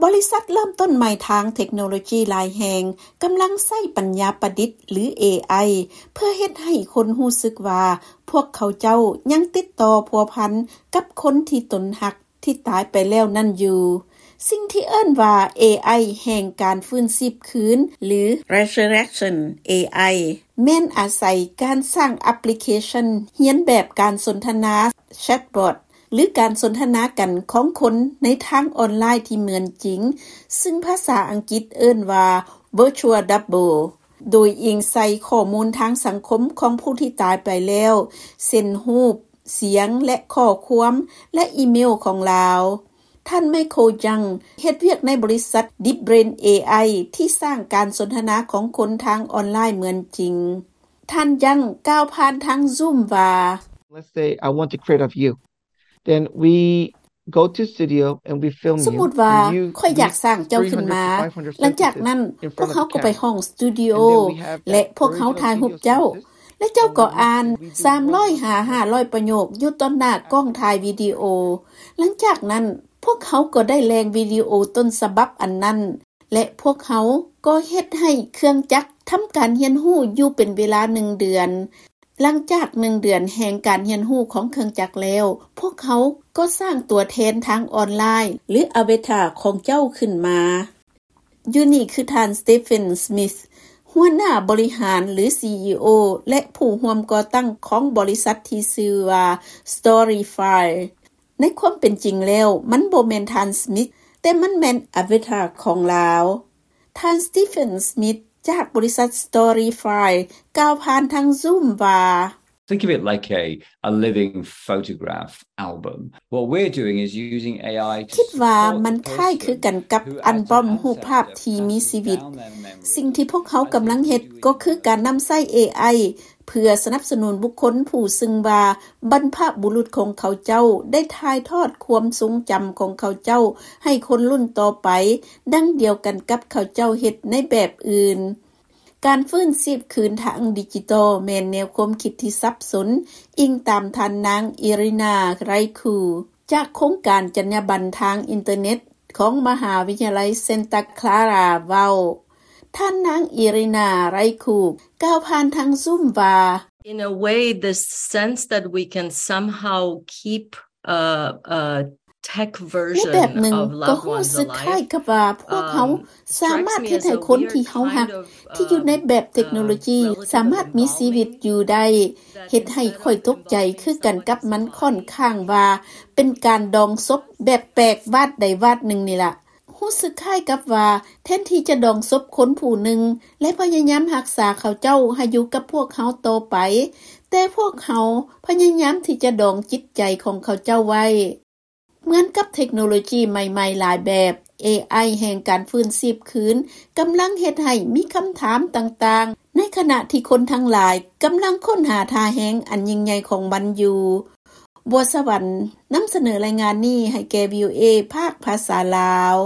ບໍລິສັດເລີ່ມຕົ້ນໃໝ່ທາງເທັກໂນໂລຈີຫຼາຍແຫ່ງກຳລັງໃຊ້ປັນຍາປະດິດ ຫຼື ເອໄອ ເພື່ອເຮັດໃຫ້ຄົນຮູ້ສຶກວ່າພວກເຂົາເຈົ້າຍັງຕິດຕໍ່ພົວພັນກັບຄົນທີ່ຕົນຮັກທີ່ຕາຍໄປແລ້ວນັ້ນຢູ່. ສິ່ງທີ່ເອີ້ນວ່າ ເອໄອ ແຫ່ງການຟື້ນຊີບຄືນ ຫຼື Resurrection ເອໄອ ແມ່ນອາໄສການສ້າງແອັບພລິເຄຊັນຮຽນແບບການສົນທະນາແຊັດບອດ ຫຼື ການສົນທະນາກັນຂອງຄົນໃນທາງອອນລາຍທີ່ເໝືອນຈິງ, ຊຶ່ງພາສາອັງກິດເອີ້ນວ່າ Virtual Double ໂດຍອີງໃສ່ຂໍ້ມູນທາງສັງຄົມຂອງຜູ້ທີ່ຕາຍໄປແລ້ວ ເຊັ່ນ ຮູບ, ສຽງ ແລະ ຂໍ້ຄວາມ ແລະ ອີເມວຂອງລາວ. ທ່ານ Michael Young ເຮັດວຽກໃນບໍລິສັດ DeepBrain ເອໄອ ທີ່ສ້າງການສົນທະນາຂອງຄົນທາງອອນລາຍເໝືອນຈິງ. ທ່ານ Young ກ່າວຜ່ານທາງ Zoom ວ່າ Let's say I want to create of you. Then we go to studio and we film you. ສົມມຸດວ່າຂ້ອຍຢາກສ້າງເຈົ້າຂຶ້ນມາ. ຫຼັງຈາກນັ້ນ, ພວກເຮົາກໍໄປຫ້ອງສະຕູດິໂອ ແລະ ພວກເຮົາຖ່າຍຮູບເຈົ້າ. ແລະ ເຈົ້າກໍອ່ານສາມຮ້ອຍຫາຫ້າຮ້ອຍປະໂຫຍກຢູ່ຕໍ່ໜ້າກ້ອງຖ່າຍວິດີໂອ. ຫຼັງຈາກນັ້ນ, ພວກເຮົາກໍໄດ້ແຫຼ່ງວິດີໂອຕົ້ນສະບັບອັນນັ້ນ ແລະ ພວກເຮົາກໍເຮັດໃຫ້ເຄື່ອງຈັກທຳການຮຽນຮູ້ຢູ່ເປັນເວລາໜຶ່ງເດືອນ. ຫຼັງຈາກໜຶ່ງເດືອນແຫ່ງການຮຽນຮູ້ຂອງເຄື່ອງຈັກແລ້ວ, ພວກເຮົາກໍສ້າງຕົວແທນທາງອອນລາຍ ຫຼື ອາວາຕາຂອງເຈົ້າຂຶ້ນມາ. ຢູ່ນີ້ຄືທ່ານ Stephen Smith ຫົວໜ້າບໍລິຫານ ຫຼື ຊີອີໂອ ແລະ ຜູ້ຮ່ວມກໍ່ຕັ້ງຂອງບໍລິສັດທີ່ຊື່ວ່າ Storyfy. ໃນຄວາມເປັນຈິງແລ້ວ, ມັນບໍ່ແມ່ນທ່ານ Smith, ແຕ່ມັນແມ່ນອາວາຕາຂອງລາວ. ທ່ານ Stephen Smith ຈາກບໍລິສັດ Storyfy ກ່າວຜ່ານທາງ Zoom ວ່າ Think of it like a, a living photograph album. What we're doing is using A I to ຄິດວ່າມັນຄ້າຍຄືກັນກັບອັນບອມຮູບພາບທີ່ມີຊີວິດ. ສິ່ງທີ່ພວກເຮົາກຳລັງເຮັດກໍຄືການນຳໃຊ້ ເອໄອ ເພື່ອສະໜັບສະໜູນບຸກຄົນຜູ້ຊຶ່ງວ່າບັນພະບຸລຸດຂອງເຂົາເຈົ້າໄດ້ຖ່າຍທອດຄວາມຊົງຈຳຂອງເຂົາເຈົ້າໃຫ້ຄົນລຸ້ນຕໍ່ໄປ, ດັ່ງດຽວກັນກັບເຂົາເຈົ້າເຮັດໃນແບບອື່ນ. ການຟື້ນຊີບຄືນທາງດິຈິຕອນແມ່ນແນວຄວາມຄິດທີ່ສັບສົນ, ອີງຕາມທ່ານນາງ ອີຣິນາ ໄຣຄູ ຈາກໂຄງການຈັນຍາບັນທາງອິນເຕີເນັດຂອງມະຫາວິທະຍາໄລເຊັນຕາຄລາຣາເວົ້າ. ທ່ານນາງ ອີຣິນາ ໄຣຄູ ກ່າວຜ່ານທາງ Zoom ວ່າ In a way, this sense that we can somehow keep a, a tech version of loved ones alive, um, strikes me as a weird kind of, um, ໃນແບບໜຶ່ງກໍຮູ້ສຶກຄ້າຍກັບວ່າພວກເຮົາສາມາດເຮັດໃຫ້ຄົນທີ່ເຮົາຮັກທີ່ຢູ່ໃນແບບເທັກໂນໂລຈີສາມາດມີຊີວິດຢູ່ໄດ້, ເຮັດໃຫ້ຂ້ອຍຕົກໃຈຄືກັນກັບມັນ, ຂ້ອນຂ້າງວ່າເປັນການດອງສົບແບບແປກວາດໃດວາດໜຶ່ງນີ້ລະ. ຮູ້ສຶກຄ້າຍກັບວ່າແທນທີ່ຈະດອງສົບຄົນຜູ້ໜຶ່ງ ແລະ ພະຍາຍາມຮັກສາເຂົາເຈົ້າໃຫ້ຢູ່ກັບພວກເຮົາຕໍ່ໄປ, ແຕ່ພວກເຮົາພະຍາຍາມທີ່ຈະດອງຈິດໃຈຂອງເຂົາເຈົ້າໄວ້. ເໝືອນກັບເທັກໂນໂລຈີໃໝ່ໆຫຼາຍແບບ, ເອໄອ ແຫ່ງການຟື້ນຊີບຄືນກຳລັງເຮັດໃຫ້ມີຄຳຖາມຕ່າງໆ, ໃນຂະນະທີ່ຄົນທັງຫຼາຍກຳລັງຄົ້ນຫາທ່າແຮງອັນຍິ່ງໃຫຍ່ຂອງມັນຢູ່. ບົວສະຫວັນ ນຳສະເໜີລາຍງານນີ້ໃຫ້ແກ່ ວີໂອເອ ພາກພາສາລາວ.